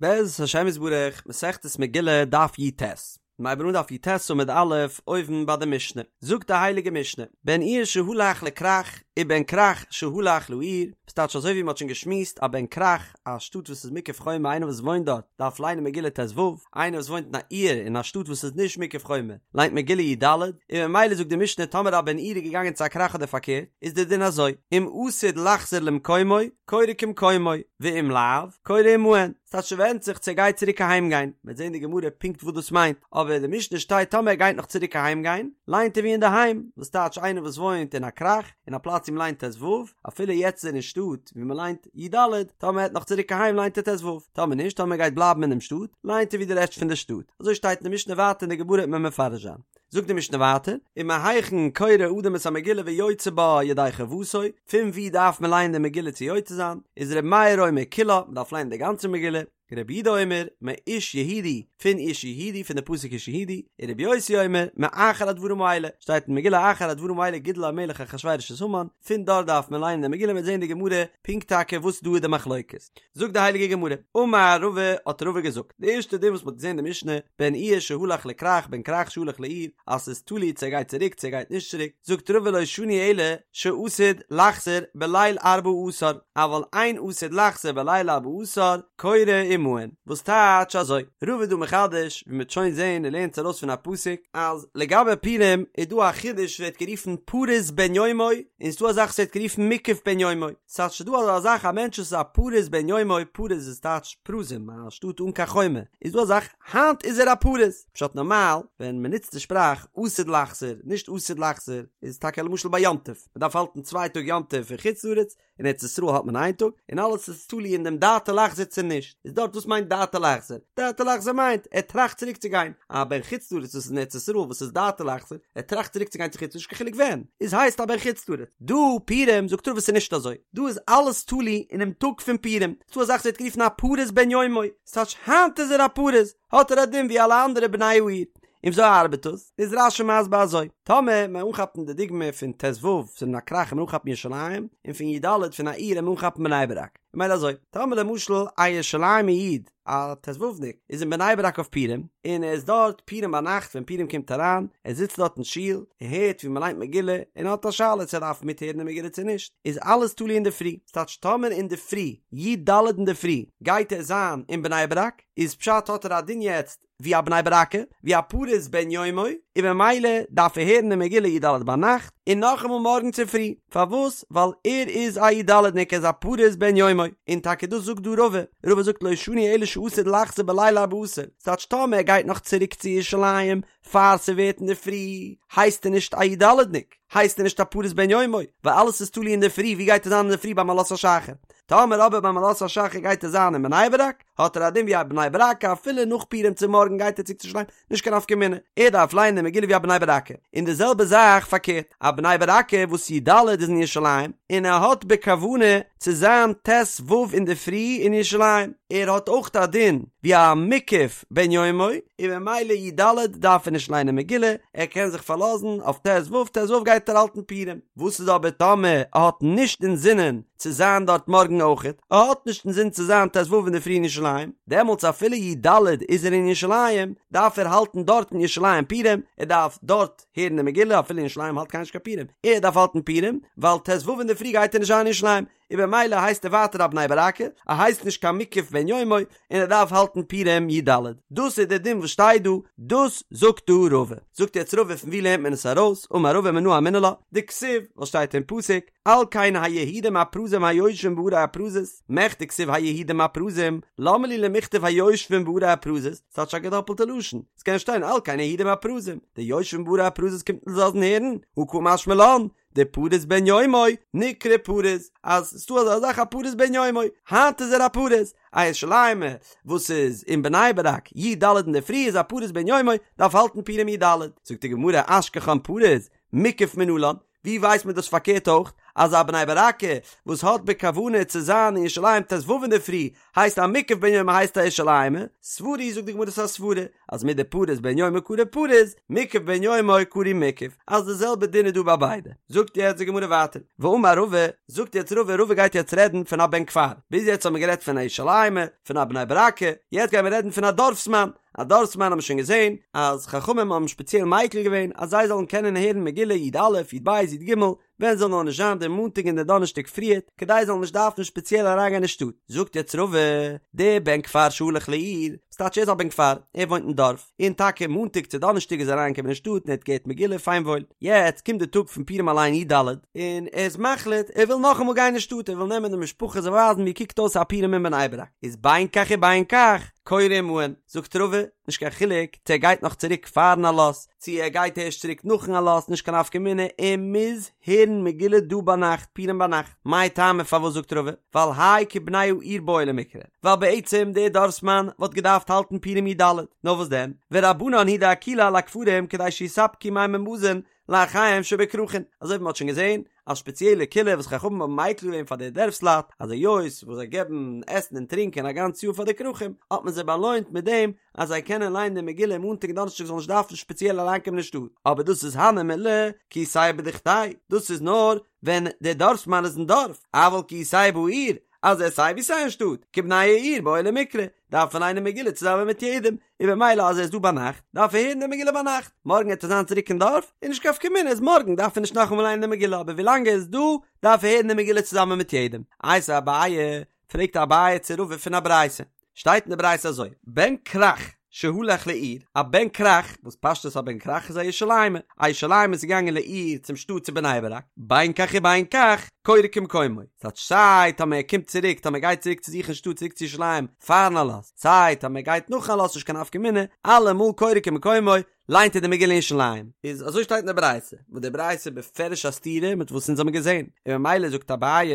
בעזרת השם יתברך, מסכת מגילה, דף י"ט. מ'הייבן אן דף י"ט עמוד א', אויבן ביי די משנה. זאגט די הייליגע משנה, בן עיר שהלך לכרך, ובן כרך שהלך לעיר, וואס טייטש אזוי ווי מ'האט שוין געשמועסט, א בן כרך, א שטאט וואס איז מוקף חומה, איינער וואס וואוינט דארט, דארף ליינען מגילה ט"ו, איינער וואס וואוינט אין א עיר, אין א שטאט וואס איז נישט מוקף חומה, ליינט מגילה י"ד, און ממילא זאגט די משנה טאמער א בן עיר איז געגאנגען צו א כרך אדער פארקערט, איז די דין אזוי, אם עתיד לחזור למקומו, קורא כמקומו, ואם לאו, קורא עמהן, ס'טייטש ס'ווענדט זיך צו ער גייט צוריק אהיים גיין, מ'וועט זען אין די גמרא פונקט וואס דאס מיינט, אבער אין די משנה שטייט טאמער ער גייט נאך צוריק אהיים גיין, ליינט ער ווי אינדערהיים, וואס טייטש איינער וואס וואוינט אין א כרך, אין א פלאץ ווי מ'ליינט ט"ו, אפילו יעצט איז ער אין שטאט ווי מ'ליינט י"ד, טאמער ער העט נאך צוריק אהיים ליינט ער ט"ו, טאמער נישט, טאמער ער גייט בלייבן אינעם שטאט, ליינט ער ווי די רעשט פון די שטאט, אזוי שטייט אין די משנה ווייטער אין די גמרא וועט מען מפרש זיין. זאגט די משנה ווייטער, ומהיכן קורא אדם את המגילה ויוצא בה ידי חובתו, פון וואו דארף מען לייענען די מגילה צו יוצא זיין, איז ר' מאיר אומר כולה, מען דארף לייענען די גאנצע מגילה, רבי יהודה אומר, מאיש יהודי, פון איש יהודי, פון די פסוק איש יהודי, און רבי יוסי אומר, מאחר הדברים האלה, שטייט אין מגילה אחר הדברים האלה גידל המלך אחשורוש את המן, פון דארט דארף מען לייענען די מגילה, מען וועט זען אין די גמרא פונקט טאקע וואס דא איז די מחלוקת. זאגט די הייליגע גמרא, אמר רבא, האט רבא געזאגט, די ערשטע דין וואס מ'האט געזען אין די משנה, בן עיר שהלך לכרך בן כרך שהלך לעיר, אז ס'איז תלוי צו ער גייט צוריק צו ער גייט נישט צוריק, זאגט רבא לא שנו אלא שעתיד לחזור בליל ארבעה עשר, אבל אין עתיד לחזור בליל ארבעה עשר, קורא עמהן, וואס טייטש אזוי? רבא איז דא מחדש, ווי מ'וועט שוין זען און לערנט עס ארויס פון א פסוק, אז לגבי פורים איז דא א חידוש ווערט גערופן פרוז בן יומו, און ס'דא א זאך וואס ווערט גערופן מוקף בן יומו. ס'טייטש ס'דא אזא זאך א מענטש וואס איז א פרוז בן יומו, פרוז איז טייטש פרוזים, א שטאט אן קיין חומה, איז דא א זאך היינט איז ער א פרוז, פשט נארמאל ווען מ'נוצט די שפראך עתיד לחזור נישט עתיד לחזור איז טאקע למשל ביי יום טוב, מ'דארף האלטן צוויי טאג יום טוב אין חוץ לארץ, אין ארץ ישראל האלט מען איין טאג, און אלעס איז תלוי אין דעם דעתו לחזור צו נישט, איז דארט וואס מיינט דעתו לחזור? דעתו לחזור מיינט ער טראכט צוריק צו גיין, א בן חוץ לארץ וואס איז אין ארץ ישראל וואס איז דעתו לחזור, ער טראכט צוריק צו גיין צו חוץ לארץ נישט קיין חילוק ווען, איז הייסט א בן חוץ לארץ. דא פורים זאגט רבא ס'איז נישט אזוי, דא איז אלעס תלוי אינעם טאג פון פורים, ס'דא א זאך וואס ווערט גערופן א פרוז בן יומו, ס'טייטש היינט איז ער א פרוז, האט ער א דין ווי אלע אנדערע בני העיר. און וויאזוי ארבעט דאס? איז רש"י מסביר אזוי, טאמער מיר אנכאפן די דוגמא פון ט"ו פון א כרך און אנכאפן ירושלים, און פון י"ד פון א עיר און אנכאפן בני ברק, ממילא אזוי, טאמער למשל א ירושלימ'ער איד, א ט"ו'ניק איז אין בני ברק אויף פורים, און ער איז דארט פורים ביינאכט ווען פורים קומט אריין, ער זיצט דארט אין שול, ער הערט ווי מען ליינט מגילה, און ער האט א שאלה צו ער דארף מיטהערן די מגילה צו נישט, איז אלעס תלוי אינדערפרי, ס'טייטש טאמער אינדערפרי, י"ד אינדערפרי, גייט ער זיין אין בני ברק, איז פשט האט ער א דין יעצט ווי א בני ברק'ער, ווי א פרוז בן יומו, און ממילא דארף ער הערן די מגילה י"ד ביינאכט, און נאכאמאל מארגן צופרי, פארוואס? ווייל ער איז א י"ד'ניק ער איז א פרוז בן יומו, און טאקע דאס זאגט דא רבא, רבא זאגט לא שנו אלא שעתיד לחזור בליל ארבעה עשר, ס'טייטש טאמער ער גייט נאך צוריק צו ירושלים פאר ס'ווערט אינדערפרי, הייסט ער נישט א י"ד'ניק, הייסט ער נישט א פרוז בן יומו, ווייל אלעס איז תלוי אינדערפרי, ווי גייט ער זיין אינדערפרי ביים עלות השחר? טאמער אבער ביים עלות השחר גייט ער זיין אין בני ברק, האט ער א דין ווי א בני ברק'ער אפילו נאך פורים צו מארגן גייט ער צוריק צו ירושלים, נישט קיין נפקא מינה, ער דארף לייענען די מגילה ווי א בני ברק'ער, און די זעלבע זאך פארקערט, א בני ברק'ער וואס י"ד איז אין ירושלים, און ער האט בכוונה צו זיין ט"ו אינדערפרי אין ירושלים, ער האט אויך א דין ווי א מוקף בן יומו, און ממילא י"ד דארף ער נישט ליינען מגילה, ער קען זיך פארלאזן אויף ט"ו, ט"ו גייט ער האלטן פורים. וואס איז אבער טאמער ער האט נישט אינזינען צו זיין דארט מארגן אויכעט, ער האט נישט אינזין צו זיין ט"ו אינדערפרי אין ירושלים, דעמאלטס אפילו י"ד איז ער אין ירושלים, דארף ער האלטן דארט אין ירושלים פורים, ער דארף דארט הערן די מגילה, אפילו אין ירושלים האלט קיינער נישט קיין פורים, ער דארף האלטן פורים, ווייל ט"ו אינדערפרי גייט ער נישט זיין אין ירושלים, און במילא הייסט ער ווייטער א בני ברק'ער, ער הייסט נישט קיין מוקף בן יומו, און ער דארף האלטן פורים י"ד. דאס איז דער דין וואס שטייט דא, דאס זאגט דא רבא. זאגט יעצט רבא פון ווי לערנט מען עס ארויס, אמר רבא מנא אמינא לה, דכתיב, וואס שטייט אין פסוק, על כן היהודים הפרזים היושבים בערי הפרזות, מכדי כתיב היהודים הפרזים, למה לי למכתב היושבים בערי הפרזות, ס'טייטש א געדאפלטע לשון, ס'קען שטיין על כן היהודים הפרזים, די יושבים בערי הפרזות קומט אונז לאזן הערן, הא קא משמע לן, דפרוז בן יומו נקרא פרוז, אז ס'דא אזא זאך א פרוז בן יומו, היינט איז ער א פרוז, א ירושלימ'ער וואס איז אין בני ברק י"ד אינדערפרי איז א פרוז בן יומו, דארף האלטן פורים י"ד, זאגט די גמרא אשכחן פרוז, מוקף מנלן, ווי ווייסט מען דאס פארקערט אויך? אז א בני ברק'ער וואס האט בכוונה צו זיין אין ירושלים ט"ו אינדערפרי הייסט א מוקף בן יומו הייסט א ירושלימ'ער, סברא היא זאגט די גמרא ס'איז א סברא אז מדפריס בן יומו קרוי פריס, מוקף בן יומו קרוי מוקף, אז די זעלבע דין איז דא ביי ביידע. זאגט יעצט די גמרא ווייטער, ואמר רבא, זאגט יעצט רבא, רבא גייט יעצט רעדן פון א בן כפר, ביז יעצט האבן מיר גערעדט פון א ירושלימ'ער, פון א בני ברק'ער, יעצט גייען מיר רעדן פון א דארפסמאן, א דארפסמאן האבן מיר שוין געזען אז חכמים האבן שפעציעל מיקל געווען אז זיי זאלן קענען הערן מגילה י"א, י"ב, י"ג, ווען זאל נאר נישט זיין דער מאנטאג און דער דאנערשטאג פריערט, כדי זיי זאלן נישט דארפן שפעציעל אריינגיין אין שטאט. זאגט יעצט רבא, דער בן כפר שהלך לעיר, ס'טייטש ער איז א בן כפר, ער וואוינט אין דארף, און טאקע מאנטאג צו דאנערשטאג איזער אריינגעקומען אין שטאט און ער האט געהערט מגילה פיין וואויל. יעצט קומט די טאג פון פורים אליין י"ד, און ער איז מחליט ער וויל נאכאמאל גיין אין שטאט, ער וויל נעמען די משפחה זיי ווייזן ווי קוקט אויס א פורים אין בני ברק, איז בין כך ובין כך קורא עמהן, זאגט רבא, נישט קיין חילוק צו ער גייט נאך צוריק פארן עלות, צו ער גייט ערשט צוריק נאכן עלות נישט קיין נפקא מינה ער מוז הערן מגילה דא ביינאכט פורים ביינאכט, מאי טעמא פארוואס זאגט רבא ווייל האי כבני העיר בעי למיקרי ווייל בעצם דער דארפסמאן וואלט געדארפט האלטן פורים י"ד נאר וואס דען ורבנן הוא דאקילו על הכפרים כדי שיספקו מים ומזון לאחיהם שבכרכין אזוי ווי מען האט שוין געזען א שפעציעלע קולא וואס חכמים האבן מיקל געווען פאר די דערפסלייט אז היות וואס זיי געבן עסן און טרינקען א גאנץ יאר פאר די כרכים האט מען זיי באלוינט מיט דעם אז זיי קענען ליינען די מגילה מאנטאג און דאנערשטאג זאלן נישט דארפן שפעציעל אריינקומען אין שטאט אבער דאס איז הני מילי כי איתיה בדוכתיה דאס איז נאר ווען דער דארפסמאן איז אין דארף אבל כי איתיה בעיר אז ער איז סיי ווי סיי אין שטאט כבני העיר בעי למיקרי דארף ער ליינען מגילה צוזאמען מיט יעדעם, און במילא אז ער איז דא ביינאכט, דארף ער הערן די מגילה ביינאכט, מארגן וועט ער זיין צוריק אין דארף, איז נישט קיין נפקא מינה, איז מארגן דארף ער נישט נאכאמאל ליינען די מגילה, אבער ווילאנג ער איז דא, דארף ער הערן די מגילה צוזאמען מיט יעדעם. איתיביה אביי, פרעגט אביי צו רבא פון א ברייתא, שטייט אין די ברייתא אזוי, בן כרך שהלך לעיר, א בן כרך, וואס פשטות א בן כרך איז א ירושלימ'ער, א ירושלימ'ער איז געגאנגען לעיר צום שטאט צו בני ברק, בין כך ובין כך, קורא כמקומו, ס'טייטש סיי טאמער ער קומט צוריק טאמער ער גייט צוריק צו זיך אין שטאט צוריק צו ירושלים פארן עלות, סיי טאמער ער גייט נאכן עלות נישט קיין נפקא מינה, אלעמאל קורא כמקומו, ליינט ער די מגילה אין ירושלים. איז אזוי שטייט אין די ברייתא, וואס די ברייתא איז בפירוש א סתירה מיט וואס אונז האבן געזען, און ממילא זאגט אביי,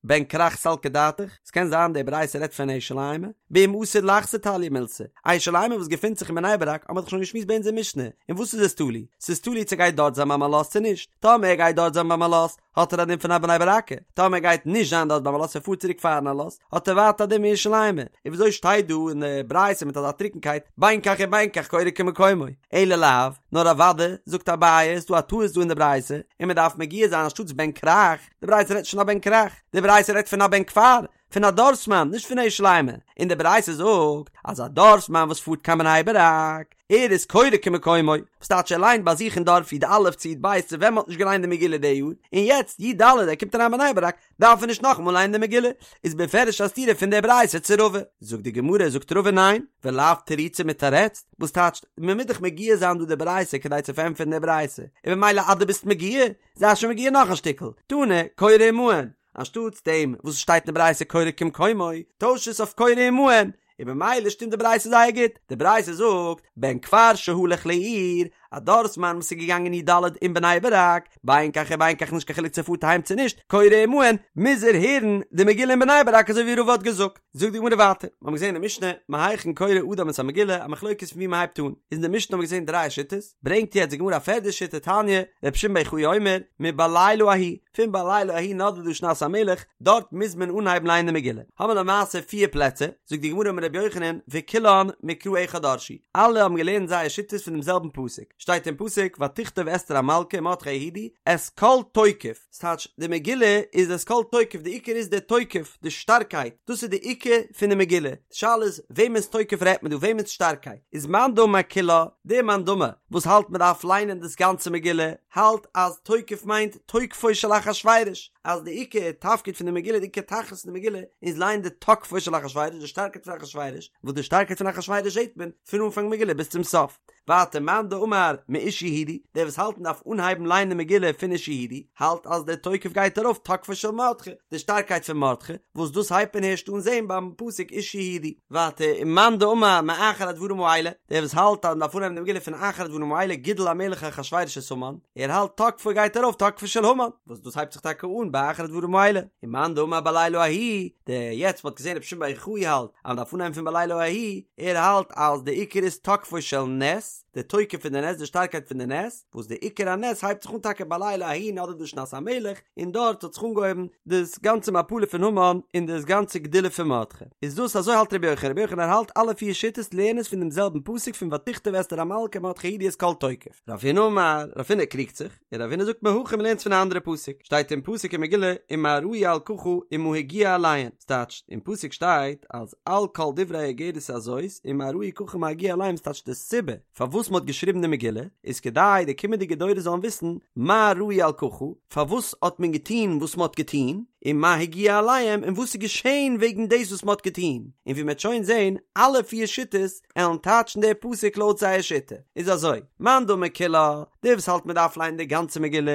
בן כרך סלקא דעתך, ס'קען זיין די ברייתא רעדט פון א ירושלימ'ער, באם עתיד לחזור תליא מילתא, א ירושלימ'ער וואס געפינט זיך אין בני ברק האבן מיר דאך שוין געשמועסט ביי אונזער משנה, אין וואס איז עס תלוי? ס'איז תלוי צו גייט דארט זיין ביים עלות צו נישט, טאמער ער גייט דארט זיין ביים עלות, האט ער א דין פון א בני ברק'ער, טאמער ער גייט נישט זיין דארט ביים עלות ער פארט צוריק פארן עלות, האט ער ווייטער א דין ווי ירושלימ'ער, און וויאזוי שטייט דא אין די ברייתא מיט אזא טרוקנקייט, בין כך ובין כך קורא כמקומו, אלא לאו, נאר אוודאי, זאגט אביי, איז דא א טעות דא אין די ברייתא, און מען דארף מגיה זיין אנשטאטס בן כרך, די ברייתא רעדט נישט פון א בן כרך, די ברייתא רעדט פון א בן כפר, פון א דארפסמאן, נישט פון א ירושלימ'ער, און די ברייתא זאגט אז א דארפסמאן וואס פארט קיין בני ברק, ער איז קורא כמקומו, וואס טייטש ער ליינט ביי זיך אין דארף י"א צו י"ב צו ווען מ'האט נישט געליינט די מגילה די יאר, און יעצט י"ד ער קומט אריין בני ברק, דארף ער נישט נאכאמאל ליינען די מגילה, איז בפירוש א סתירה פון די ברייתא צו רבא. זאגט די גמרא, זאגט רבא ניין, ולאו תרוצי מתרצת, וואס טייטשט, מ'מוז דאך מגיה זיין דא די ברייתא כדי צו פארענטפערן די ברייתא, און במילא אז דו ביסט מגיה, זיי שוין מגיה נאך א שטיקל, תנא, קורא עמהן, אנשטאטס דעם וואס עס שטייט אין די ברייתא קורא כמקומו, טויש עס אויף קורא עמהן, און במילא שטימט די ברייתא זייער גוט, די ברייתא זאגט, בן כפר שהלך לעיר, א דארפסמאן וואס איז געגאנגען י"ד אין בני ברק, בין כך ובין כך נישט קיין חילוק צו ער פארט אהיים צו נישט, קורא עמהן, מוז ער הערן די מגילה אין בני ברק אזוי ווי רבא האט געזאגט. זאגט די גמרא ווייטער, מיר האבן געזען אין די משנה, מהיכן קורא אדם את המגילה, א מחלוקת פון ווי מען הייבט אן, איז אין די משנה האבן מיר געזען דריי שיטות, ברענגט יעצט די גמרא א פערדע שיטה תניא, רבי שמעון בר יוחאי אומר, מבלילה ההוא, פון בלילה ההוא נדדה שנת המלך, דארט מוז מען אנהייבן לייענען די מגילה. האבן מיר למעשה פיר פלעצער, זאגט די גמרא אמר רבי יוחנן, וכולן מקרא אחד דרשו, אלע האבן געלערנט זייער שיטות פון דעם זעלבן פסוק, שטייט אין פסוק, ותכתוב אסתר המלכה ומרדכי היהודי, את כל תוקף, ס'טייטש, די מגילה איז את כל תוקף, די עיקר איז די תוקף, די שטארקייט, דאס איז די עיקר פון די מגילה, די שאלה איז, וועמענס תוקף רעדט מען דא, וועמענס שטארקייט? איז מאן דאמר כולה, דער מאן דאמר וואס האלט מען דארף ליינען דאס גאנצע מגילה, האלט אז תוקף מיינט תוקפו של אחשורוש, אז די עיקר תפקיד פון די מגילה, די עיקר תכלית פון די מגילה, איז ליינען די תוקפו של אחשורוש, די שטארקייט פון אחשורוש, וואס די שטארקייט פון אחשורוש זעט מען פון אנפאנג מגילה ביז צום סוף. ווייטער מאן דאמר מאיש יהודי, דער וואס האלט מען דארף אנהייבן ליינען די מגילה פון איש יהודי, האלט אז דער תוקף גייט ארויף תוקפו של מרדכי, די שטארקייט פון מרדכי, וואס דאס הייבט מען הערשט אן זען ביים פסוק איש יהודי. ווייטער ומאן דאמר מאחר הדברים האלה, דער וואס האלט אז מען דארף אנהייבן די מגילה פון אחר הדברים האלה גידל המלך אחשורוש את המן, ער האלט תוקפו גייט ארויף תוקפו של המן, וואס דאס הייבט זיך טאקע אן ביי אחר הדברים האלה, ומאן דאמר בלילה ההוא, דער יעצט מ'האט געזען רבי שמעון בר יוחאי האלט אז מען דארף אנהייבן פון בלילה ההוא, ער האלט אז די עיקר איז תוקפו של נס. נס, די תוקף פון די נס, די שטארקייט פון די נס, וואס די עיקר הנס הייבט זיך אן טאקע בלילה ההוא נדדה שנת המלך, און דארט האט זיך אנגעהויבן דאס גאנצע מפלה פון המן און דאס גאנצע גדולה פון מרדכי. איז דאס אזוי האלט רבי יוחנן, רבי יוחנן האלט אלע פיר שיטות לערנען עס פון דעם זעלבן פסוק פון ותכתב אסתר המלכה ומרדכי היהודי את כל תוקף. רב הונא אמר, רב הונא קריגט זיך, און רב הונא זאגט מהכא מ'לערנט פון א אנדערע פסוק, שטייט אין פסוק אין מגילה ומה ראו על ככה ומה הגיע אליהן, ס'טייטש אין פסוק שטייט אז על כל דברי האיגרת הזאת ומה ראו ככה ומה הגיע אליהם ס'טייטש די סיבה פארוואס מ'האט געשריבן די מגילה איז כדי די קומענדיגע דורות זאלן וויסן מה ראו על ככה פארוואס האט מען געטון וואס מ'האט געטון ומה הגיע אליהם און וואס איז געשען וועגן דאס וואס מ'האט געטון און ווי מ'וועט שוין זען אלע פיר שיטות עלן טייטשן די פסוק לויט זייער שיטה, איז אזוי, מאן דאמר כולה, דער וואס האלט מען דארף ליינען די גאנצע מגילה,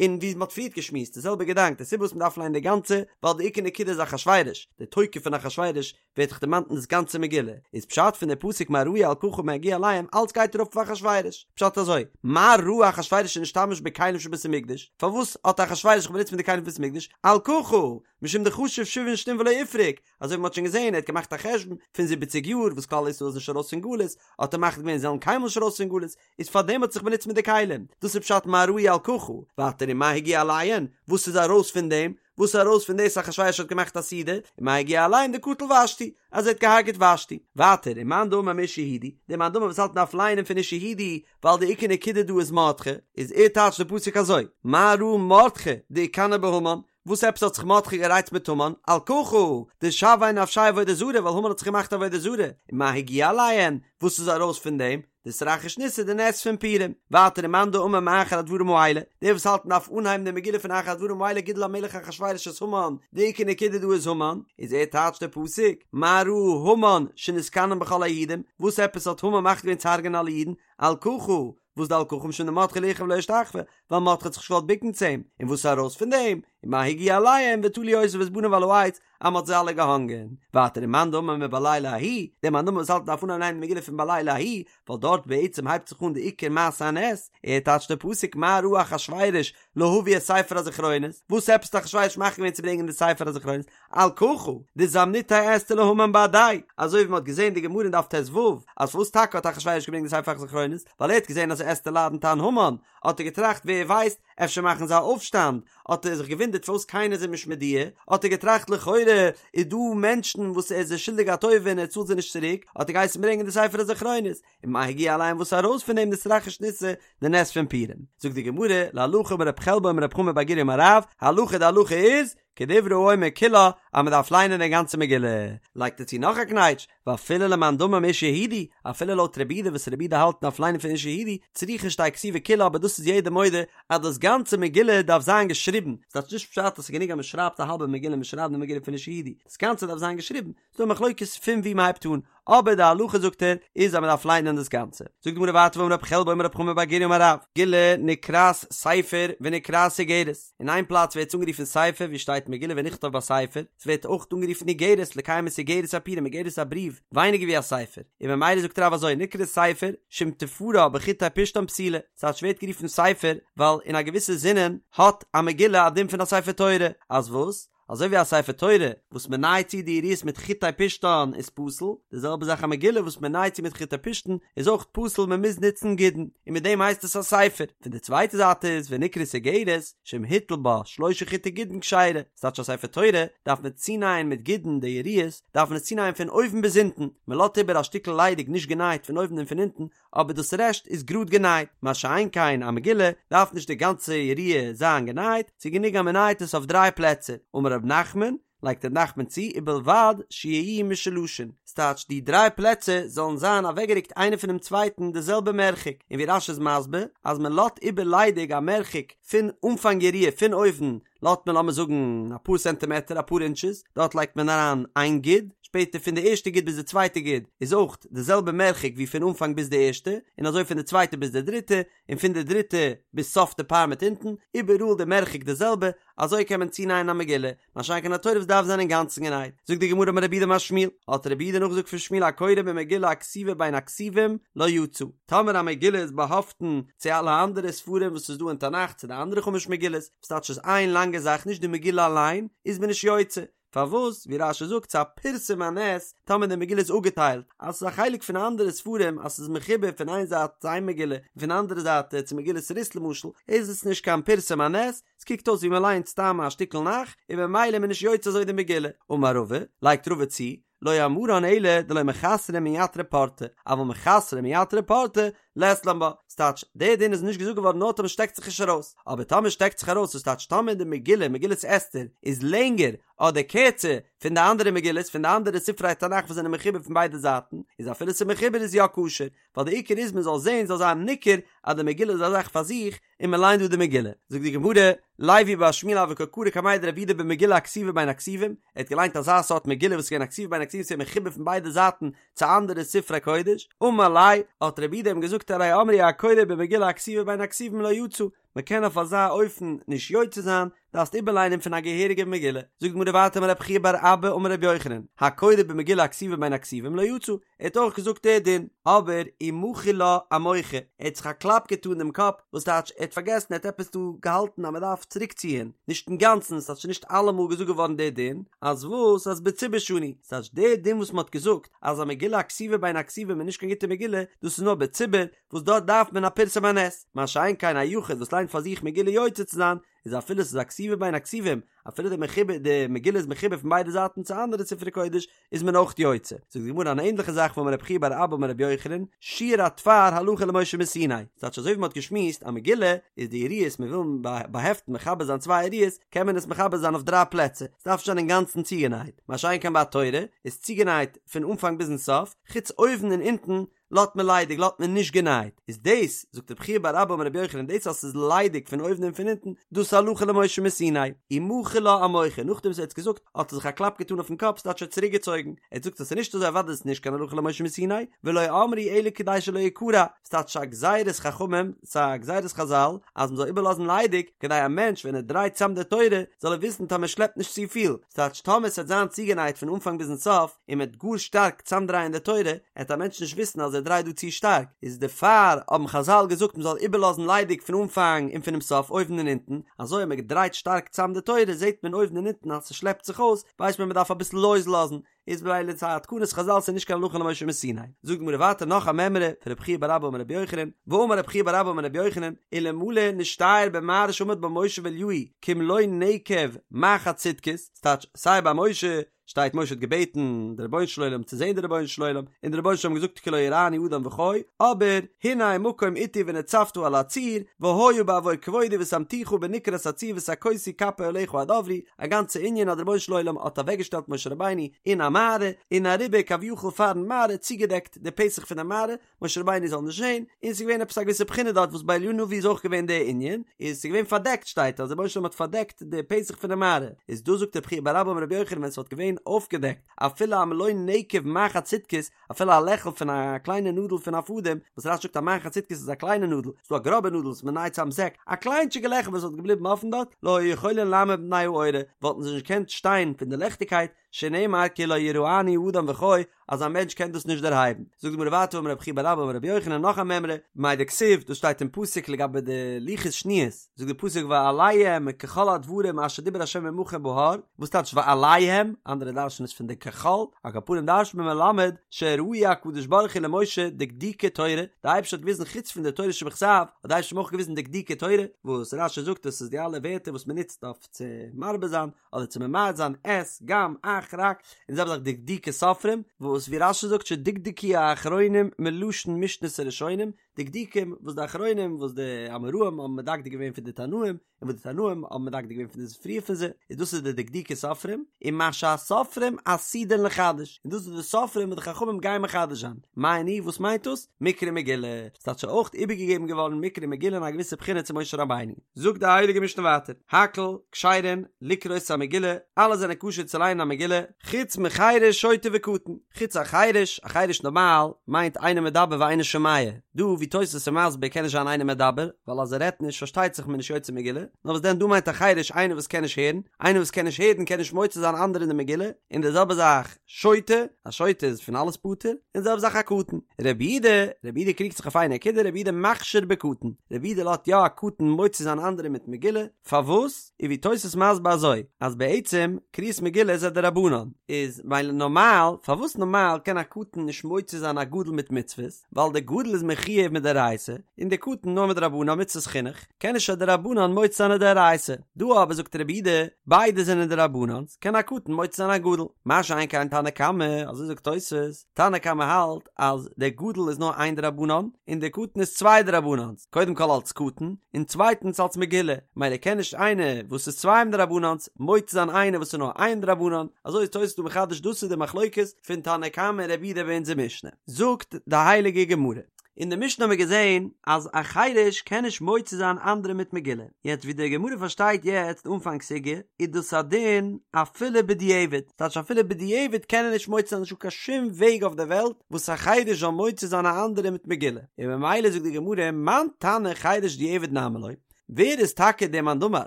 און ווי מען האט פריערט געשמועסט די זעלבע געדאנק, די סיבה וואס מען דארף ליינען די גאנצע, ווייל די עיקר נקודה איז אחשורוש, די תוקף פון אחשורוש ווערט דאך דערמאנט אין דאס גאנצע מגילה, איז פשט פון די פסוק מה ראו על ככה ומה הגיע אליהם, אלץ גייט ארויף אויף אחשורוש, פשט אזוי, מה ראה אחשורוש שנשתמש בכלים של בית המקדש, פארוואס האט אחשורוש זיך באנוצט מיט די כלים פון בית המקדש, על ככה, משום דחשיב שבעין שנין ולא איפרוק, אזוי ווי מ'האט שוין געזען, ער האט געמאכט א חשבון פון זיבעציג יאר וואס כלל ישראל איז נישט ארויס פון גלות, האט ער מחליט געווען זיי זאלן קיינמאל נישט ארויס פון גלות, איז פארדעם האט ער זיך באנוצט מיט די כלים, דאס איז פשט מה ראו על ככה, ווייטער ומה הגיע אליהן, וואס איז ארויס פון דעם, וואס איז ארויס פון דאס אחשורוש האט געמאכט א סעודה, ומה הגיע אליהם דקטל ושתי, אז ער האט געהארגעט ושתי, ווייטער ומאן דאמר מאיש יהודי, דער מאן דאמר וואס האלט מ'דארף ליינען פון איש יהודי, ווייל די עיקר נקודה דא איז מרדכי, איז ער טייטשט די פסוק אזוי, מה ראה מרדכי דאיקני בהמן, וואס עפעס האט זיך מרדכי גערייצט מיט המן? על ככה, דשויה נפשיה עבודה זרה, ווייל המן האט זיך געמאכט עבודה זרה, ומה הגיע אליהן, וואס איז ארויס פון דעם? דאתרחיש ניסא די נס פון פורים. ווייטער ומאן דאמר מאחר הדברים האלה, דער וואס האלט מ'דארף אנהייבן די מגילה פון אחר הדברים האלה גידל המלך אחשורוש את המן, די עיקר נקודה דא איז המן, איז ער טייטשט די פסוק, מה ראה המן שנתקנא בכל היהודים, וואס עפעס האט המן מחליט געווען צו הרג'ענען אלע אידן? על ככה, וואס די על ככה משום דמרדכי לא יכרע ולא ישתחוה, ווייל מרדכי האט זיך נישט געוואלט בוקן צו אים, און וואס איז ארויס פון דעם? ומה הגיע אליהם ותלו אותו ואת בניו על העץ, אז מ'האט זיי אלע געהאנגען. ווייטער ומאן דאמר מבלילה ההוא, דער מאן דאמר וואס האלט מ'דארף אנהייבן ליינען די מגילה פון בלילה ההוא, ווייל דארט בעצם הייבט זיך אן די עיקר מעשה הנס, ער טייטשט די פסוק מה ראה אחשורוש להביא את ספר הזכרונות, וואס עפעס האט אחשורוש מחליט געווען צו ברענגען די ספר הזכרונות, על ככה, דזמניתיה אסתר להמן בהדיה, אזוי ווי מ'האט געזען אין די גמרא אין דף ט"ו, אז פארוואס טאקע האט אחשורוש געברענגט די ספר הזכרונות, ווייל ער האט געזען אז אסתר לאדנט איין המן, האט ער געטראכט ווער ווייסט, אפשר מאכן זיי א אויפשטאנד, האט ער זיך געוואונדערט פארוואס קיינער איז אים נישט מודיע, האט ער געטראכט לכאורה איז דא מענטשן וואס ער איז זיי שולדיג א טובה און ער צאלט זיי נישט צוריק, האט ער געהייסן ברענגען די ספר הזכרונות, ומה הגיע אליהם וואס איז ארויס פון דעם דאתרחיש ניסא די נס פון פורים. זאגט די גמרא, להלכה אמר רב חלבו אמר רב חמא בר גוריא אמר רב, הלכה די הלכה איז, כדברי האומר כולה, אז מען דארף ליינען די גאנצע מגילה. לייגט ער צו נאך א קנייטש, ואפילו למאן דאמר מאיש יהודי, אפילו לויט רבי יהודה וואס רבי יהודה האלט מ'דארף ליינען פון איש יהודי, צריכה שתהא כתובה כולה אבער דאס איז יעדער מודה אז דאס גאנצע מגילה דארף זיין געשריבן, ס'טייטש נישט פשט אז ס'איז גענוג אז מען שרייבט א האלבע מגילה מען שרייבט די מגילה פון איש יהודי, דאס גאנצע דארף זיין געשריבן, ס'דא א מחלוקת פון וואו מ'הייבט אן, אבער די הלכה זאגט ער איז אז מ'דארף ליינען דאס גאנצע. זאגט די גמרא ווייטער ואמר רב חלבו אמר רב חמא בר גוריא אמר רב, מגילה נקראת ספר ונקראת איגרת, אין איין פלאץ ווערט עס אנגערופן ספר ווי שטייט מגילה ונכתב בספר, ס'ווערט אויך אנגערופן איגרת לקיים את איגרת הפורים איגרת איז א בריוו ווייניגער ווי א ספר, און ממילא זאגט רב אזוי נקראת ספר שאם תפרה בחוטי פשתן פסולה, ס'הייסט ס'ווערט גערופן ספר ווייל אין א געוויסע זינען האט א מגילה א דין פון א ספר תורה, אז וואס? אזוי ווי א ספר תורה וואס מען נייעט צו די יריעות מיט חוטי פשתן איז פסול, די זעלבע זאך א מגילה וואס מען נייעט צו מיט חוטי פשתן איז אויך פסול מען מוז נוצן גידין, און מיט דעם הייסט עס א ספר. פון די צווייטע זייט איז ונקראת איגרת שאם הטיל בה שלשה חוטי גידין כשרה, ס'טייטש א ספר תורה דארף מען צונייען מיט גידין די יריעות דארף מען עס צונייען פון אויבן ביז אונטן, מען לאזט איבער א שטיקל ליידיג נישט גענייט פון אויבן און פון אונטן, אבער דאס רעשט איז גראד גענייט, מה שאין כן א מגילה דארף נישט די גאנצע יריעה זיין גענייט, ס'איז גענוג אז מ'נייט עס אויף דריי פלעצער, אמר רב נחמן, לייגט רב נחמן צו, ובלבד שיהיו משולשין, ס'טייטש די דריי פלעצער זאלן זיין אוועקגערוקט איינער פונעם צווייטן די זעלבע מרחק, און ווי רש"י איז מסביר אז מ'לאזט איבער ליידיג א מרחק פון אנפאנג יריעה פון אויבן לאזט מען לאמיר זאגן אפאר סענטימעטער אפאר אינטשעס, דארט לייגט מען אריין איין גיד, שפעטער פון די ערשטע גיד ביז די צווייטע גיד איז אויך די זעלבע מרחק ווי פון אנפאנג ביז די ערשטע, און אזוי פון די צווייטע ביז די דריטע, און פון די דריטע ביז סוף די פארמעט אונטן, איבעראל די מרחק די זעלבע, אזוי קען מען צונייען א מגילה, מה שאין כן א תורה וואס דארף זיין אינגאנצן גענייט. זאגט די גמרא אמר רב יהודה אמר שמואל, האט רב יהודה נאכגעזאגט פון שמואל הקורא במגילה הכתובה בין הכתובים לא יצא, טאמער א מגילה איז באהאפטן צו אלע אנדערע ספרים וואס איז דא אין תנך צו די אנדערע חמש מגילות, וואס טייטש איז איין לאנגע זאך נישט די מגילה אליין, איז מען נישט יוצא. פארוואס? ווי רש"י זאגט ס'איז א פרסום הנס טאמער די מגילה איז אפגעטיילט, אז ס'איז א חלק פון אנדערע ספרים אז ס'איז מחובר פון איין זייט צו איין מגילה און פון די אנדערע זייט צו מגילת רות למשל, איז עס נישט קיין פרסום הנס, ס'קוקט אויס ווי מ'ליינט סתם א שטיקל נ"ך, און ממילא איז מען נישט יוצא אזוי די מגילה. אמר רבא, לייגט רבא צו, לא אמרן אלא דלא מחסרא מייתרא פורתא, אבל מחסרא מייתרא פורתא, לית לן בה. ס'טייטש, דער דין איז נישט געזאגט געווארן נאר טאמער שטעקט זיך נישט ארויס, אבער טאמער שטעקט זיך ארויס, וואס טייטש טאמער די מגילה, מגילת אסתר, איז לענגער אדער קערצער פון די אנדערע מגילות, פון די אנדערע ספרי תנך וואס זענען מחובר פון ביידע זייטן, איז אפילו ס'איז מחובר איז יא כשר, ווייל די עיקר איז מ'זאל זען, זאל זיין ניכר אז די מגילה איז א זאך פאר זיך, און מען ליינט דא די מגילה, זאגט די גמרא, לוי בר שמואל הוה קא קרי קמיה דרב יהודה במגילה הכתובה בין הכתובים, ער האט געליינט אזא סארט מגילה וואס איז געווען א כתובה בין הכתובים ס'איז מחובר פון ביידע זייטן צו אנדערע ספרי קודש, אמר ליה, האט רב יהודה אים געזאגט הרי אמרו הקורא במגילה הכתובה בין הכתובים לא יצא, מען קען אויף אזא אופן נישט יוצא זיין, דארפסט איבערליינען פון א געהעריגע מגילה, זאגט די גמרא ווייטער אמר רב חייא בר אבא אמר רבי יוחנן, הקורא במגילה הכתובה בין הכתובים לא יצא, ער האט אויך געזאגט דער דין, אבער ומחי לה אמוחא, ער האט זיך א קלאפ געטאן דעם קאפ, וואס טייטש ער האט פארגעסן ער האט עפעס דא געהאלטן אז מען דארף צוריק ציען, נישט אינגאנצן, ס'טייטש נישט אלעמאל געזאגט געווארן דער דין, אז וואס אז בציבור שנו, ס'טייטש דער דין וואס מען האט געזאגט אז א מגילה הכתובה בין הכתובים איז נישט קיין גוטע מגילה, דאס איז נאר בציבור, וואס דארט דארף מען א פרסום הנס, מה שאין כן א יחיד וואס ליינט פאר זיך מגילה יוצא צו זיין, איז אפילו ס'איז א כתובה בין הכתובים, אפילו די מחובר די מגילה איז מחובר פון ביידע זייטן צו אנדערע ספרי קודש, איז מען אויך יוצא. זאגט די גמרא אן ענדליכע זאך ואמר רב חייא בר אבא אמר רבי יוחנן, שיור התפר הלכה למשה מסיני, ס'טייטש אזוי ווי מ'האט געשמועסט א מגילה איז די יריעות מ'וויל באהעפטן מחבר זיין צוויי יריעות קען מען עס מחבר זיין אויף דריי פלעצער, ס'דארף נישט זיין אינגאנצן צוגענייט, מה שאין כן ביי א תורה איז צוגענייט פון אנפאנג ביזן סוף, חוץ אויבן און אונטן לאזט מען ליידיג לאזט מען נישט גענייט, איז דאס, זאגט רב חייא בר אבא אמר רבי יוחנן, דאס אז ס'איז ליידיג פון אויבן און פון אונטן, דאס איז הלכה למשה מסיני, ומחי לה אמוחא, נאכדעם וואס ער האט עס געזאגט, האט ער זיך א קלאפ געטאן אויפן קאפ, ס'טייטש ער האט צוריק געצויגן, ער האט געזאגט אז ס'איז נישט אזוי אוודאי איז עס נישט קיין הלכה למשה מסיני, ולא אמרו אלא כדי שלא יקרע, ס'טייטש א גזירת חכמים, ס'איז א גזירת חזל, אז מ'זאל איבערלאזן ליידיג, כדי א מענטש ווען ער דרייט צאם די תורה, זאל ער וויסן טאמער שלעפט נישט צופיל, ס'טייטש טאמער ס'וועט זיין צוגענייט פון אנפאנג ביזן סוף, און מ'וועט גאר שטארק צאמדרייען די תורה, עט א מענטש נישט וויסן אז ער דרייט דא צו שטארק, איז דערפאר האבן חזל געזאגט מ'זאל איבערלאזן ליידיג פון אנפאנג און פונעם סוף אויבן און אונטן, אזוי אז מ'דרייט שטארק צאם די תורה זעט מען אויבן און אונטן אז ס'שלעפט זיך אויס, ווייסט מען מ'דארף אביסל לויז לאזן, איז ממילא ס'איז א תקנת חזל ס'איז נישט קיין הלכה למשה מסיני. זאגט די גמרא ווייטער נאך א מימרא פון רב חייא בר אבא אמר רבי יוחנן, ואמר רב חייא בר אבא אמר רבי יוחנן, אלמלא נשתייר במערה שעמד בה משה ואליהו כמלא נקב מחט סדקית, ס'טייטש סיי ביי משה שטייט משה האט געבעטן די רבונו של עולם צו זען די רבונו של עולם, און די רבונו של עולם האט געזאגט כי לא יראני אדם וחי, אבער הנה מקום אתי ונצבת על הצור, והיה בעבור כבודי ושמתיך בנקרת הצור ושכותי כפי עליך עד עברי, א גאנצע ענין אז די רבונו של עולם האט אוועקגעשטעלט משה רבינו אין א מערה, און אריבער כביכול פארן מערה צוגעדעקט די פתח פון די מערה, משה רבינו זאל נישט זען, און ס'איז געווען עפעס א געוויסע בחינה דארט וואס ביי אליהו הנביא איז אויך געווען די ענין, איז ס'איז געווען פארדעקט שטייט אז דער רבונו של עולם האט פארדעקט די פתח פון די מערה, איז דא זאגט רב חייא בר אבא אמר רבי יוחנן ווען ס'וואלט געווען אויפגעדעקט אפילו א מלא נקב מחט סדקית, אפילו א לעכל פון א קליינע נאדל פון א פאדעם, וואס רש"י זאגט א מחט סדקית איז א קליינע נאדל, ס'דא א גראבע נאדל וואס מ'נייט צאם זעק, א קליינטשיגע לעכל וואס וואלט געבליבן אפן דארט, לא היו יכולין לעמוד מפני האורה, וואלטן זיי נישט געקענט שטיין פון די לעכטיגקייט, שנאמר כי לא יראני האדם וחי, אז א מענטש קען דאס נישט דערהייבן. זאגט די גמרא ווייטער אמר רב חייא בר אבא אמר רבי יוחנן נאך א מימרא, מאי דכתיב, דאס שטייט אין פסוק לגבי די לוחות שניות, זאגט די פסוק ואליהם ככל הדברים אשר דיבר ה' עמכם בהר, וואס טייטש ואליהם, אנדערע דרש'ן עס פון די ככל, על כל פנים דרש'נט מען מלמד שהראהו הקדוש ברוך הוא למשה דקדוקי תורה, די אייבערשטער האט געוויזן חוץ פון די תורה שבכתב, האט די אייבערשטער אים אויך געוויזן דקדוקי תורה, וואס רש"י זאגט דאס איז די אלע ווערטער וואס מען נוצט אויף צו מרבה זיין, אדער צו ממעט זיין את, גם, אך, רק, און זעלבע זאך דקדוקי סופרים, וואס ווי רש"י זאגט שדקדקו האחרונים מלשון משנת הראשונים, דקדוקים וואס די אחרונים וואס די אמוראים האבן מדקדק געווען פון די תנאים, און וואס די תנאים האבן מדקדק געווען פון די פריער פון זיי, איז דאס איז די דקדוקי סופרים, און מה שהסופרים עתידין לחדש, און דאס איז די סופרים וואס די חכמים גייען מחדש זיין, מאי ניהו וואס מיינט דאס? מקרא מגילה, ס'טייטש אויך איבערגעגעבן געווארן מקרא מגילה אין א געוויסע בחינה צו משה רבינו. זאגט די הייליגע משנה ווייטער, הכל כשרין לקרות המגילה, אלע זענען כשר צו ליינען א מגילה, חוץ מחירש שוטה וקטן, חוץ א חירש, א חירש נארמאל מיינט אינו מדבר ואינו שומע, דא ווי. תוס' איז מסביר קען נישט זיין אינו מדבר, ווייל אז ער רעדט נישט פארשטייט זיך מען נישט יוצא מגילה, נאר וואס דען דא מיינט א חירש איינער וואס קען נישט הערן, איינער וואס קען נישט הערן קען נישט מוציא זיין אנדערע אין די מגילה, און די זעלבע זאך שוטה, א שוטה איז פון אלעס פטור, און די זעלבע זאך א קטן. רבי יהודה, רבי יהודה קריגט זיך אויף איין נקודה, רבי יהודה מכשיר בקטן, רבי יהודה לאזט יא א קטן מוציא זיין אנדערע מיט מגילה, פארוואס? איז ווי תוס' מסביר אזוי, אז בעצם קריאת מגילה איז א דרבנן, איז ווייל נארמאל, פארוואס נארמאל קען א קטן נישט מוציא זיין א גדול מיט מצוות, ווייל דער גדול איז מחויב מדאורייתא, און דער קטן נאר מדרבנן מצוות חינוך, קען נישט א דרבנן מוציא זיין א דאורייתא, דא אבער זאגט רבי יהודה, ביידע זענען דרבנן'ס, קען א קטן מוציא זיין א גדול, מה שאין כן תנא קמא, אזוי זאגט תוס', תנא קמא האלט אז דער גדול איז נאר איין דרבנן, און דער קטן איז צוויי דרבנן'ס, קודם כל אלס קטן, און צווייטנס אלס מגילה, מילא קען נישט איינער וואס איז צוויי דרבנן'ס מוציא זיין איינער וואס איז נאר איין דרבנן, אזוי איז תוס' דא מחדש דאס איז די מחלוקת פון תנא קמא און רבי יהודה ביי אונזער משנה. זאגט די הייליגע גמרא. אין די משנה האבן מיר געזען אז א חירש קען נישט מוציא זיין אנדערע מיט מגילה, יעצט ווי די גמרא פארשטייט יעצט אנפאנג סוגיא איז דאס א דין אפילו בדיעבד, ס'טייטש אפילו בדיעבד קען ער נישט מוציא זיין נישטא קיין שום וועג אויף די וועלט וואס א חירש זאל מוציא זיין א אנדערע מיט מגילה, און ממילא זאגט די גמרא מאן תנא חירש דיעבד נמי לא, ווער איז טאקע דער מאן דאמר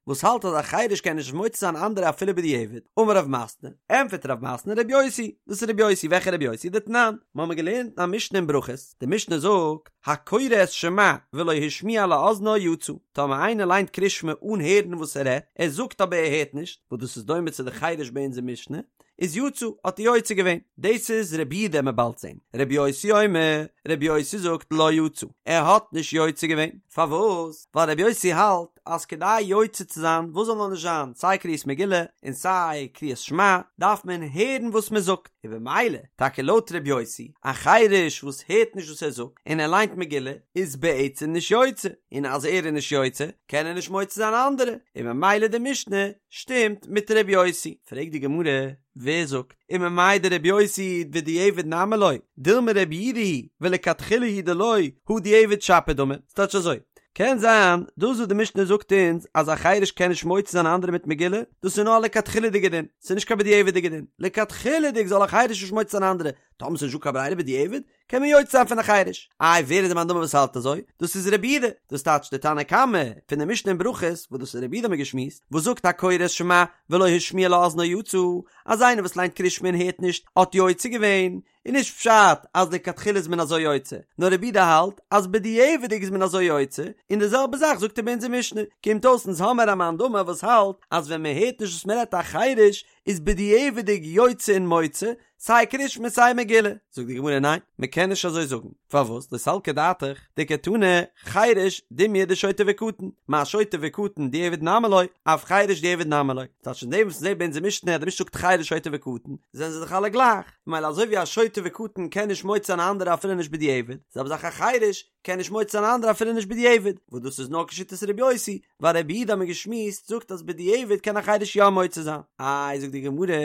וואס האלט אז א חירש קען נישט מוציא זיין אנדערע אפילו בדיעבד? אמר רב מתנה, ענטפערט רב מתנה רבי יוסי, דאס איז רבי יוסי, וועלכע רבי יוסי? דתנן, מיר האבן געלערנט אין א משנה אין ברכות, די משנה זאגט, הקורא את שמע ולא השמיע לאזנו יצא, טאמער איינער ליינט קריאת שמע אן הערן וואס ער רעדט, ער זאגט אבער ער הערט נישט, וואס דאס איז דומה צו די חירש ביי אונזער משנה, איז יצא, האט ער יוצא געווען. דאס איז רבי יהודה מ'עט באלד זען. רבי יוסי אומר, רבי יוסי זאגט לא יצא, ער האט נישט יוצא געווען. פארוואס? ווייל רבי יוסי האלט אז כדי יוצא צו זיין וואס זאל נאר נישט זיין, סיי קריאת מגילה און סיי קריאת שמע, דארף מען הערן וואס מען זאגט. און במילא, טאקע לויט רבי יוסי, א חירש וואס הערט נישט וואס ער זאגט, און ער ליינט מגילה, איז בעצם נישט יוצא, און אז ער איז נישט יוצא, קען ער נישט מוציא זיין אנדערע, און במילא די משנה שטימט מיט ר' יוסי. פרעגט די גמרא, ווער זאגט, וממאי דר' יוסי ודיעבד נמי לא, דילמא ר' יהודה היא ולכתחילה הוא דלא, הא דיעבד שפיר דמי, ס'טייטש אזוי, קען זיין דאס וואס די משנה זאגט אונז אז א חירש קען נישט מוציא זיין אנדערע מיט מגילה, דאס איז נאר א לכתחילה'דיגע דין, ס'איז נישט קיין בדיעבד'יגע דין, לכתחילה'דיג זאל א חירש נישט מוציא זיין אנדערע, טאמער ס'איז נישטא קיין ברירה בדיעבד, קען מען יוצא זיין פון א חירש. איי ווער איז די מאן דאמר וואס האלט אזוי? דאס איז רבי יהודה, דאס טייטש די תנא קמא פון די משנה אין ברכות, וואס דאס איז רבי יהודה האבן מיר געשמועסט, וואס זאגט הקורא את שמע ולא השמיע לאזנו יצא, אז איינער וואס ליינט קריאת שמע און הערט נישט האט יוצא געווען, איז נישט פשט אז לכתחילה איז מען אזוי יוצא, נאר רבי יהודה האלט אז בדיעבד'יג איז מען אזוי יוצא, און די זעלבע זאך זאגט ער ביי אונזער משנה, קומט אויס אונז האמער א מאן דאמר וואס האלט אז ווען מען הערט נישט וואס מען רעדט א חירש איז בדיעבד'יג יוצא און מוציא, סיי קרישמע סיי מגילה. זאגט די גמרא ניין, מען קען נישט אזוי זאגן, פארוואס? לא סלקא דעתך דקתני חירש דומיא דשוטה וקטן, מה שוטה וקטן דיעבד נמי לא, אף חירש דיעבד נמי לא. ס'טייטש אין דעם וואס מ'זעט ביי אונזער משנה אז די משנה זאגט חירש שוטה וקטן, זענען זיי דאך אלע גלייך, ממילא אזוי ווי א שוטה וקטן קען נישט מוציא זיין א אנדערע אפילו נישט בדיעבד, זעלבע זאך א חירש קען נישט מוציא זיין א אנדערע אפילו נישט בדיעבד, וואס דאס איז נאר כשיטת ר' יוסי, ווייל רבי יהודה האט מען געשמועסט זאגט אז בדיעבד קען א חירש יא מוציא זיין. איי זאגט די גמרא,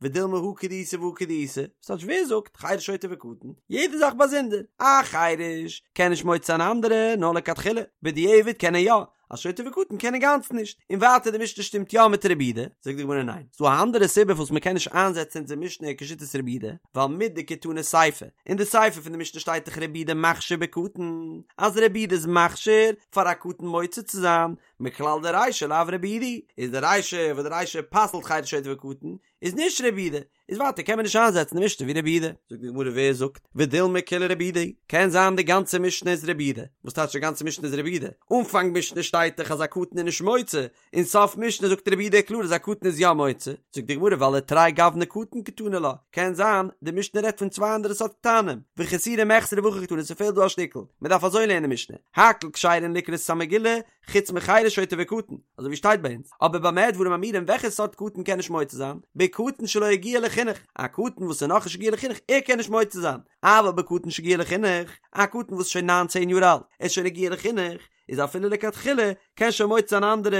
ודילמא הא כדאיתא והא כדאיתא, ס'טייטש ווער זאגט חירש שוטה וקטן, יעדע זאך באזונדער, א חירש קען נישט מוציא זיין אנדערע נאר לכתחילה, בדיעבד קען ער יא, א שוטה וקטן קען אינגאנצן נישט, און ווייטער די משנה שטימט יא מיט רבי יהודה, זאגט די גמרא ניין, ס'דא א אנדערע סיבה פארוואס מ'קען נישט איינזעצן אונזער משנה כשיטת רבי יהודה, ווייל מדקתני סיפא, אין די סיפא פון די משנה שטייט דאך רבי יהודה מכשיר בקטן, אז רבי יהודה איז מכשיר פאר א קטן מוציא צו זיין, מכלל דרישא לאו רבי יהודה היא, איז די רישא וואס די רישא פסל'ט חירש שוטה וקטן, איז נישט רבי יהודה, איז ווייטער קען מען נישט איינזעצן די משנה ווי רבי יהודה. זאגט די גמרא ווער זאגט ודילמא כולה רבי יהודה היא, קען זיין די גאנצע משנה איז רבי יהודה, וואס טייטש די גאנצע משנה איז רבי יהודה? אנפאנג משנה שטייט דאך אז א קטן איז נישט מוציא, און סוף משנה זאגט רבי יהודה קלאר אז א קטן איז יא מוציא, זאגט די גמרא ווייל לתרי גווני קטן קתני לה, קען זיין די משנה רעדט פון צוויי אנדערע סארט קטנים, וחסורי מחסרא והכי קתני ס'פעלט דא א שטיקל, מ'דארף אזוי לערנען די משנה, הכל כשרין לקרות את המגילה, חוץ מחירש שוטה וקטן, אזוי ווי שטייט ביי אונז, אבער במה דברים אמורים וועלכע סארט קטן קען נישט מוציא זיין? בקטן שלא הגיע לחינוך, א קטן וואס איז נאכנישט הגיע לחינוך ער קען נישט מוציא זיין, אבל בקטן שהגיע לחינוך, א קטן וואס איז שוין ניין צען יאר אלט, ער איז שוין הגיע לחינוך, איז אפילו לכתחילה, קען שוין מוציא זיין אנדערע,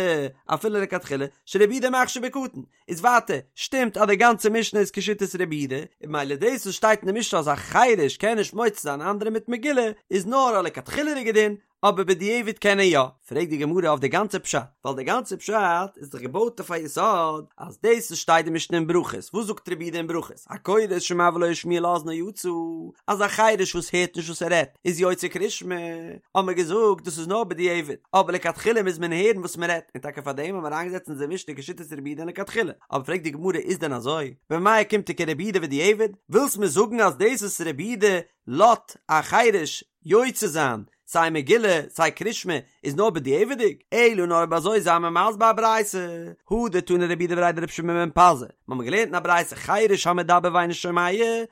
אפילו לכתחילה, שרבי יהודה מכשיר בקטן, איז ווייטער, שטימט אז די גאנצע משנה איז כשיטת רבי יהודה, און ממילא דאס וואס שטייט אין די משנה אז א חירש קען נישט מוציא זיין אנדערע מיט מגילה, איז נאר א לכתחילה'דיגע דין, אבער בדיעבד קען ער יא. פרעגט די גמרא אויף די גאנצע פשט, ווייל די גאנצע פשט איז דאך געבויט אויף א יסוד אז דאס וואס שטייט די משנה אין ברכות, וואס זאגט רבי יהודה אין ברכות, הקורא את שמע ולא השמיע לאזנו יצא, אז א חירש וואס הערט נישט וואס ער רעדט איז יוצא קרישמע, האבן מיר געזאגט דאס איז נאר בדיעבד, אבער לכתחילה מוז מען הערן וואס מען רעדט, און טאקע פארדעם האבן מיר אריינגעזעצט אונזער משנה כשיטת רבי יהודה לכתחילה, אבער פרעגט די גמרא איז דען אזוי? במאי אוקימתא כרבי יהודה בדיעבד? ווילסט מיר זאגן אז דאס וואס רבי יהודה לאזט א חירש יוצא זיין סיי מגילה סיי קרישמע איז נאר בדיעבד'יג? אלא נאר אויב אזוי זיי מיר מסביר א ברייתא, הא דתני רבי יהודה בריה דרבי שמעון בן פזי, מ'האמיר געלערנט אין א ברייתא חירש המדבר ואינו שומע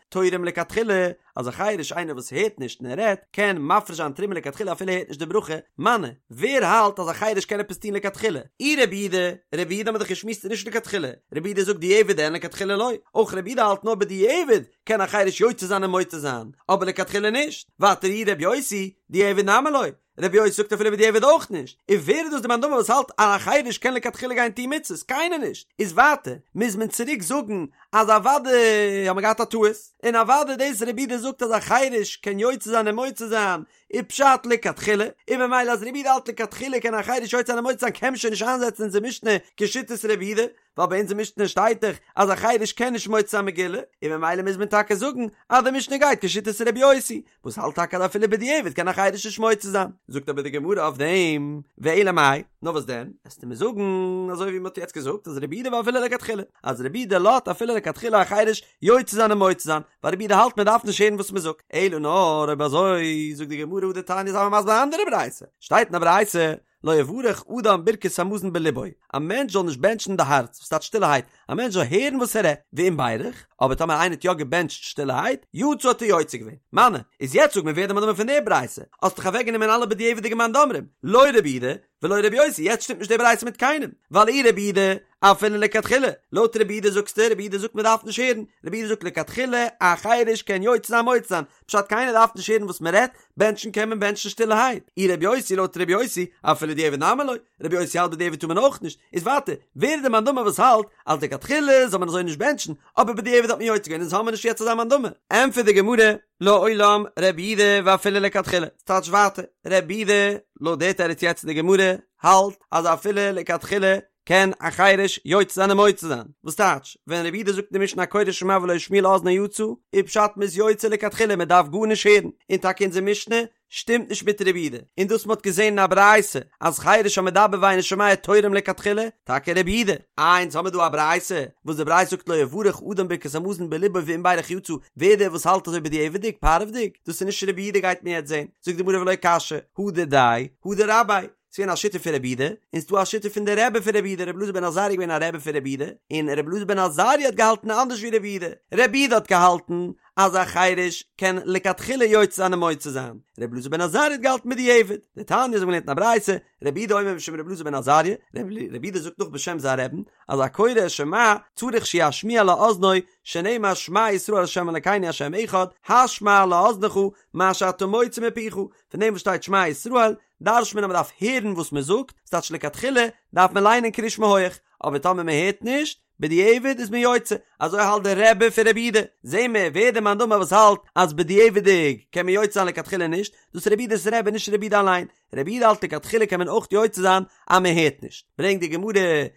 תורם לכתחילה, אז א חירש איינער וואס הערט נישט און ער רעדט קען מפריש זיין תרומה לכתחילה אפילו ער הערט נישט די ברכה, מני, ווער האלט אז א חירש קען עפעס טון לכתחילה? אי רבי יהודה, רבי יהודה האמיר דאך געשמועסט איז נישט לכתחילה, רבי יהודה זאגט דיעבד אין לכתחילה לא, אויך רבי יהודה האלט נאר בדיעבד קען א חירש יוצא זיין און מוציא זיין, אבער לכתחילה נישט, ווייטער אי רבי יוסי, דיעבד נמי לא, רבי יוסי זאגט אפילו בדיעבד אויך נישט, און ווער איז דאס די מאן דאמר וואס האלט אז א חירש קען לכתחילה גיין טון מצוות? קיינער נישט! איז ווייטער מוז מען צוריק זאגן אז אוודאי האט מען געהאט א טעות, און אוודאי דאס רבי יהודה זאגט אז א חירש קען יוצא זיין און מוציא זיין איז פשט לכתחילה, און ממילא אז רבי יהודה האלט לכתחילה קען א חירש יוצא זיין און מוציא זיין קען מען שוין נישט איינזעצן אונזער משנה כשיטת רבי יהודה, ווייל ביי אונזער משנה שטייט דאך אז א חירש קען נישט מוציא זיין מגילה, און ממילא מוז מען טאקע זאגן אז די משנה גייט כשיטת רבי יוסי, וואס האלט טאקע אז אפילו בדיעבד קען א חירש נישט מוציא זיין. זאגט אבער די גמרא אויף דעם, ואלא מאי, נאר וואס דען, עסטו מיר זאגן אזוי ווי מען האט יעצט געזאגט אז רבי יהודה ואפילו לכתחילה, אז רבי יהודה לאזט אפילו לכתחילה א חירש יוצא זיין און מוציא זיין, ווייל רבי יהודה האלט מען דארף נישט הערן וואס מען זאגט, אלא נאר אויב אזוי זאגט די גמרא הא דתניא זיי מיר מסביר א אנדערע ברייתא, שטייט אין א ברייתא לא יברך אדם ברכת המזון בלבו, א מענטש זאל נישט בענטשן אין די הארץ, וואס טייטש שטילערהייט, א מענטש זאל הערן וואס ער רעדט, ואם בירך, אבער טאמער איינער האט יא געבענטשט שטילערהייט, יצא האט ער יוצא געווען. מני, איז יעצט זאג מיר ווער די מאן דאמר פון די ברייתא, האסט דאך אוועקגענומען אלע בדיעבד'יגע מאן דאמרים, לא רבי יהודה, ולא רבי יוסי, יעצט שטימט נישט די ברייתא מיט קיינעם, ווייל אי רבי יהודה, אפילו לכתחילה, לויט רבי יהודה זאגסטו, רבי יהודה זאגט מען דארף נישט הערן, רבי יהודה זאגט לכתחילה, א חירש קען יוצא זיין מוציא זיין, פשט קיינער דארף נישט הערן וואס מען רעדט, בענטשן קען מען בענטשן שטילערהייט, אי רבי יוסי לויט רבי יוסי, אפילו דיעבד נמי לא, רבי יוסי האלט בדיעבד טאר מען אויך נישט, איז ווייטער, ווער איז די מאן דאמר וואס האלט אז לכתחילה זאל מען אזוי נישט בענטשן, אבער בדיעבד האט מען יוצא געווען אונז האמיר נישט יעצט אזא מאן דאמר. ענטפערט די גמרא, לעולם רבי יהודה ואפילו לכתחילה, ס'טייטש ווייטער, רבי יהודה, לויט די תירוץ יעצט אין די גמרא, האלט אז אפילו לכתחילה קען א חירש יוצא זיין און מוציא זיין, וואס טייטש, ווען רבי יהודה זאגט אין די משנה הקורא שמע ולא השמיע לאזנו יצא, איז פשט מ'איז יוצא לכתחילה מען דארף גארנישט הערן, און טאקע אונזער משנה שטימט נישט מיט רבי יהודה, און דאס מ'האט געזען אין א ברייתא אז חירש המדבר ואינו שומע תורם לכתחילה, טאקע רבי יהודה. איי אונז האמיר דא א ברייתא, וואס די ברייתא זאגט לא יברך אדם ברכת המזון בלבו ואם בירך יצא, ווער דער וואס האלט אזוי בדיעבד'יג, פארווע'דיג, דאס איז נישט רבי יהודה גייט מען יעצט זען, זאגט די גמרא ולא קשיא, הא דידיה, הא דרביה, ס'איז געווען א שיטה פון רבי יהודה, און ס'דא א שיטה פון די רבי פון רבי יהודה, רבי אלעזר בן עזריה איז געווען א רבי פון רבי יהודה, און רבי אלעזר בן עזריה האט געהאלטן אנדערש ווי רבי יהודה, רבי יהודה האט געהאלטן אז א חירש קען לכתחילה יוצא זיין און מוציא זיין, רבי אלעזר בן עזריה האט געהאלטן בדיעבד, דתניא אזוי ווי מ'לערנט אין א ברייתא, רבי יהודה אומר משום רבי אלעזר בן עזריה, רבי יהודה זאגט נאך בשם זיין רבי'ן, אז הקורא את שמע צריך שישמיע לאזנו, שנאמר שמע ישראל ה' אלקינו ה' אחד, השמע לאזנך מה שאתה מוציא מפיך, פון דעם וואס שטייט שמע ישראל, דרש'ט מען אז מען דארף הערן וואס מען זאגט, ס'טייטש לכתחילה דארף מען ליינען קריאת שמע הויעך, אבער טאמער מען הערט נישט, בדיעבד איז מען יוצא, אזוי האלט דער רבי פון רבי יהודה, זעהן מיר ווער דער מאן דאמר וואס האלט אז בדיעבד'יג קען מען יוצא זיין לכתחילה נישט, דאס איז רבי יהודה'ס רבי נישט רבי יהודה אליין, רבי יהודה האלט לכתחילה קען מען אויך יוצא זיין אז מען הערט נישט, ברענגט די גמרא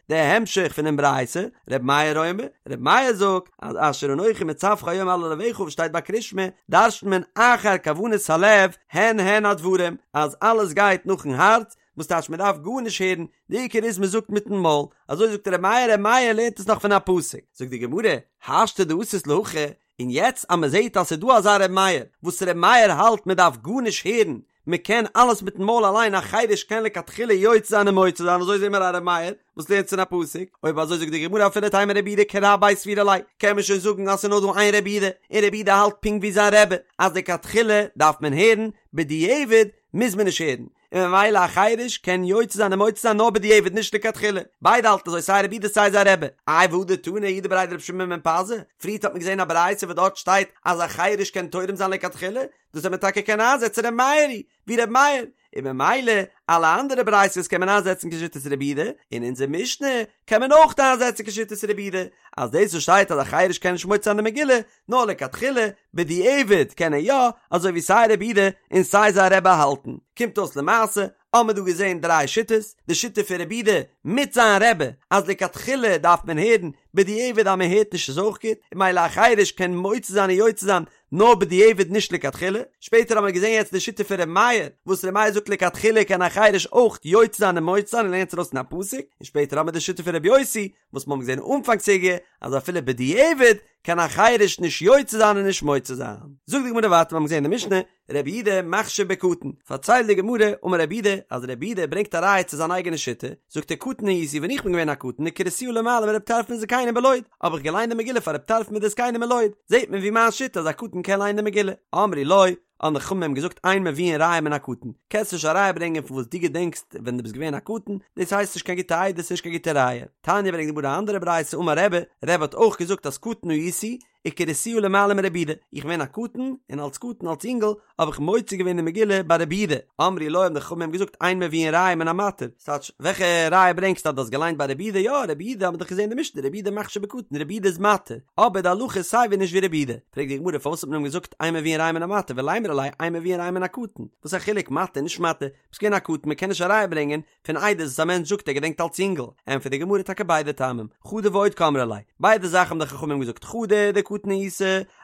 די המשך פונעם ברייתא, רבי מאיר אומר, רבי מאיר זאגט אז אשר אנכי מצווך היום על לבבך וואס שטייט ביי קריאת שמע, דרש'נט מען אחר כוונת הלב הן הן הדברים, אז אלעס גייט נאכן הארץ, וואס טייטש מען דארף גארנישט הערן, די עיקר איז מען זאגט מיטן מויל, אזוי זאגט רבי מאיר, רבי מאיר לערנט עס נאך פון א פסוק, זאגט די גמרא, השתא דאתית להכי, און יעצט אז מען זעט אז ס'איז דא אזא רבי מאיר, וואס רבי מאיר האלט מען דארף גארנישט הערן, מען קען אלעס מיטן מויל אליין א חירש קען לכתחילה יוצא זיין און מוציא זיין אזוי זעהן מיר א ר' מאיר וואס לערנט פון א פסוק, אויב אזוי זאגט די גמרא אפילו תימא רבי יהודה כרביה סבירא ליה קען מען שוין זאגן אז ס'איז נאר דא איין רבי יהודה און רבי יהודה האלט פונקט ווי זיין רבי אז לכתחילה דארף מען הערן בדיעבד מוז מען נישט הערן און ממילא א חירש קען יוצא זיין און מוציא זיין נאר בדיעבד נישט לכתחילה ביידע האלטן אזוי סיי רבי יהודה סיי זיין רבי איי והא דתני יהודה בריה דרבי שמעון בן פזי פריערט האט מען געזעהן א ברייתא וואס דארט שטייט אז א חירש קען תורם זיין לכתחילה דאס וועט מען טאקע קענען איינזעצן ר' מאיר היא ווי ר' מאיר, און ממילא אלע אנדערע ברייתות קען מען איינזעצן כשיטת רבי יהודה, און אונזער משנה קען מען אויך איינזעצן כשיטת רבי יהודה, אז דאס וואס שטייט אז א חרש קען נישט מוציא זיין די מגילה, נאר לכתחילה, בדיעבד קען ער יא, אזוי ווי סיי רבי יהודה און סיי זיין רבי האלטן. קומט אויס למעשה, האמיר דא געזען דריי שיטות, די שיטה פון רבי יהודה מיט זיין רבי, אז לכתחילה דארף מען הערן, בדיעבד אז מען הערט נישט איז אויך גוט, און ממילא א חרש קען מוציא זיין און יוצא זיין נאר בדיעבד נישט לכתחילה, שפעטער האמיר געזען יעצט די שיטה פון ר' מאיר, וואס ר' מאיר זאגט לכתחילה קען א חרש אויך יוצא זיין און מוציא זיין און לערנט ארויס פון א פסוק, און שפעטער האמיר די שיטה פון ר' יוסי, וואס מ'האבן געזען אנפאנג סוגיא אז אפילו בדיעבד קען א חרש נישט יוצא זיין און נישט מוציא זיין. זאגט די גמרא ווייטער מ'האבן געזען אין די משנה, רבי יהודה מכשיר בקטן, פארציילט די גמרא, אמר רבי יהודה, אז רבי יהודה ברענגט א ראיה צו זיין אייגענע שיטה, זאגט ער קטן הייתי ווען איך בין געווען א קטן וקריתיה למעלה מרבי טרפון וזקנים בלוד, האב איך געליינט די מגילה פאר רבי טרפון מיט די זקנים אין לוד, זעט מען ווי מיין שיטה אז א קטן קען ליינען די מגילה. אמרו לו, האבן די חכמים אים געזאגט אין מביאין ראיה מן הקטן, קענסט נישט א ראיה ברענגען פון וואס דו געדענקסט ווען דו ביסט געווען א קטן, דאס הייסט נישט קיין גוטע עדות נישט קיין גוטע ראיה. תניא ברענגט די גמרא א אנדערע ברייתא אמר רבי, רבי האט אויך געזאגט אז קטן הייתי, וקריתיה למעלה מרבי יהודה, איך בין געווען א קטן, און אלס קטן אלס אינגל, האב איך מוציא געווען די מגילה ביי רבי יהודה, אמרו לו האבן די חכמים געזאגט אין מביאין ראיה מן המתיר, ס'טייטש, וועלכע ראיה ברענגסטו אז דו האסט געליינט ביי רבי יהודה, יא רבי יהודה האט מען דאך געזען אין די משנה רבי יהודה מכשיר בקטן רבי יהודה איז מתיר, אבער די הלכה איז סייווי נישט ווי רבי יהודה, פרעגט די גמרא פארוואס האט מען אים געזאגט אין מביאין ראיה מן המתיר ולימרו ליה אין מביאין ראיה מן הקטן, וואס א חילוק מתיר נישט מתיר, ביסט געווען א קטן מען קען נישט א ראיה ברענגען פון עדות וואס א מענטש זאגט ער געדענקט אלס יונגל, ענטפערט די גמרא טאקע ביידע טעמים, חדא ועוד קאמרי ליה, ביידע זאכן האבן די חכמים געזאגט חדא דקטן היית,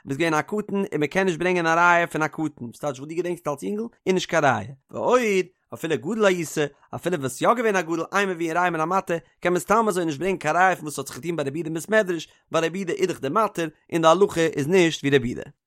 ביסט געווען א קטן און מען קען נישט ברענגען א ראיה פון א קטן, וואס טייטש וואס דו געדענקסט אלס יונגל איז נישט קיין ראיה, ועוד, אפילו גדול היית, אפילו וואלסט יא געווען א גדול אין מביאין ראיה מן המתיר, קען מען סתם אזוי נישט ברענגען קיין ראיה פון וואס האט זיך געטון ביי רבי יהודה אין בית מדרש, ווייל רבי יהודה איז דאך דער מתיר, און די הלכה איז נישט ווי רבי יהודה.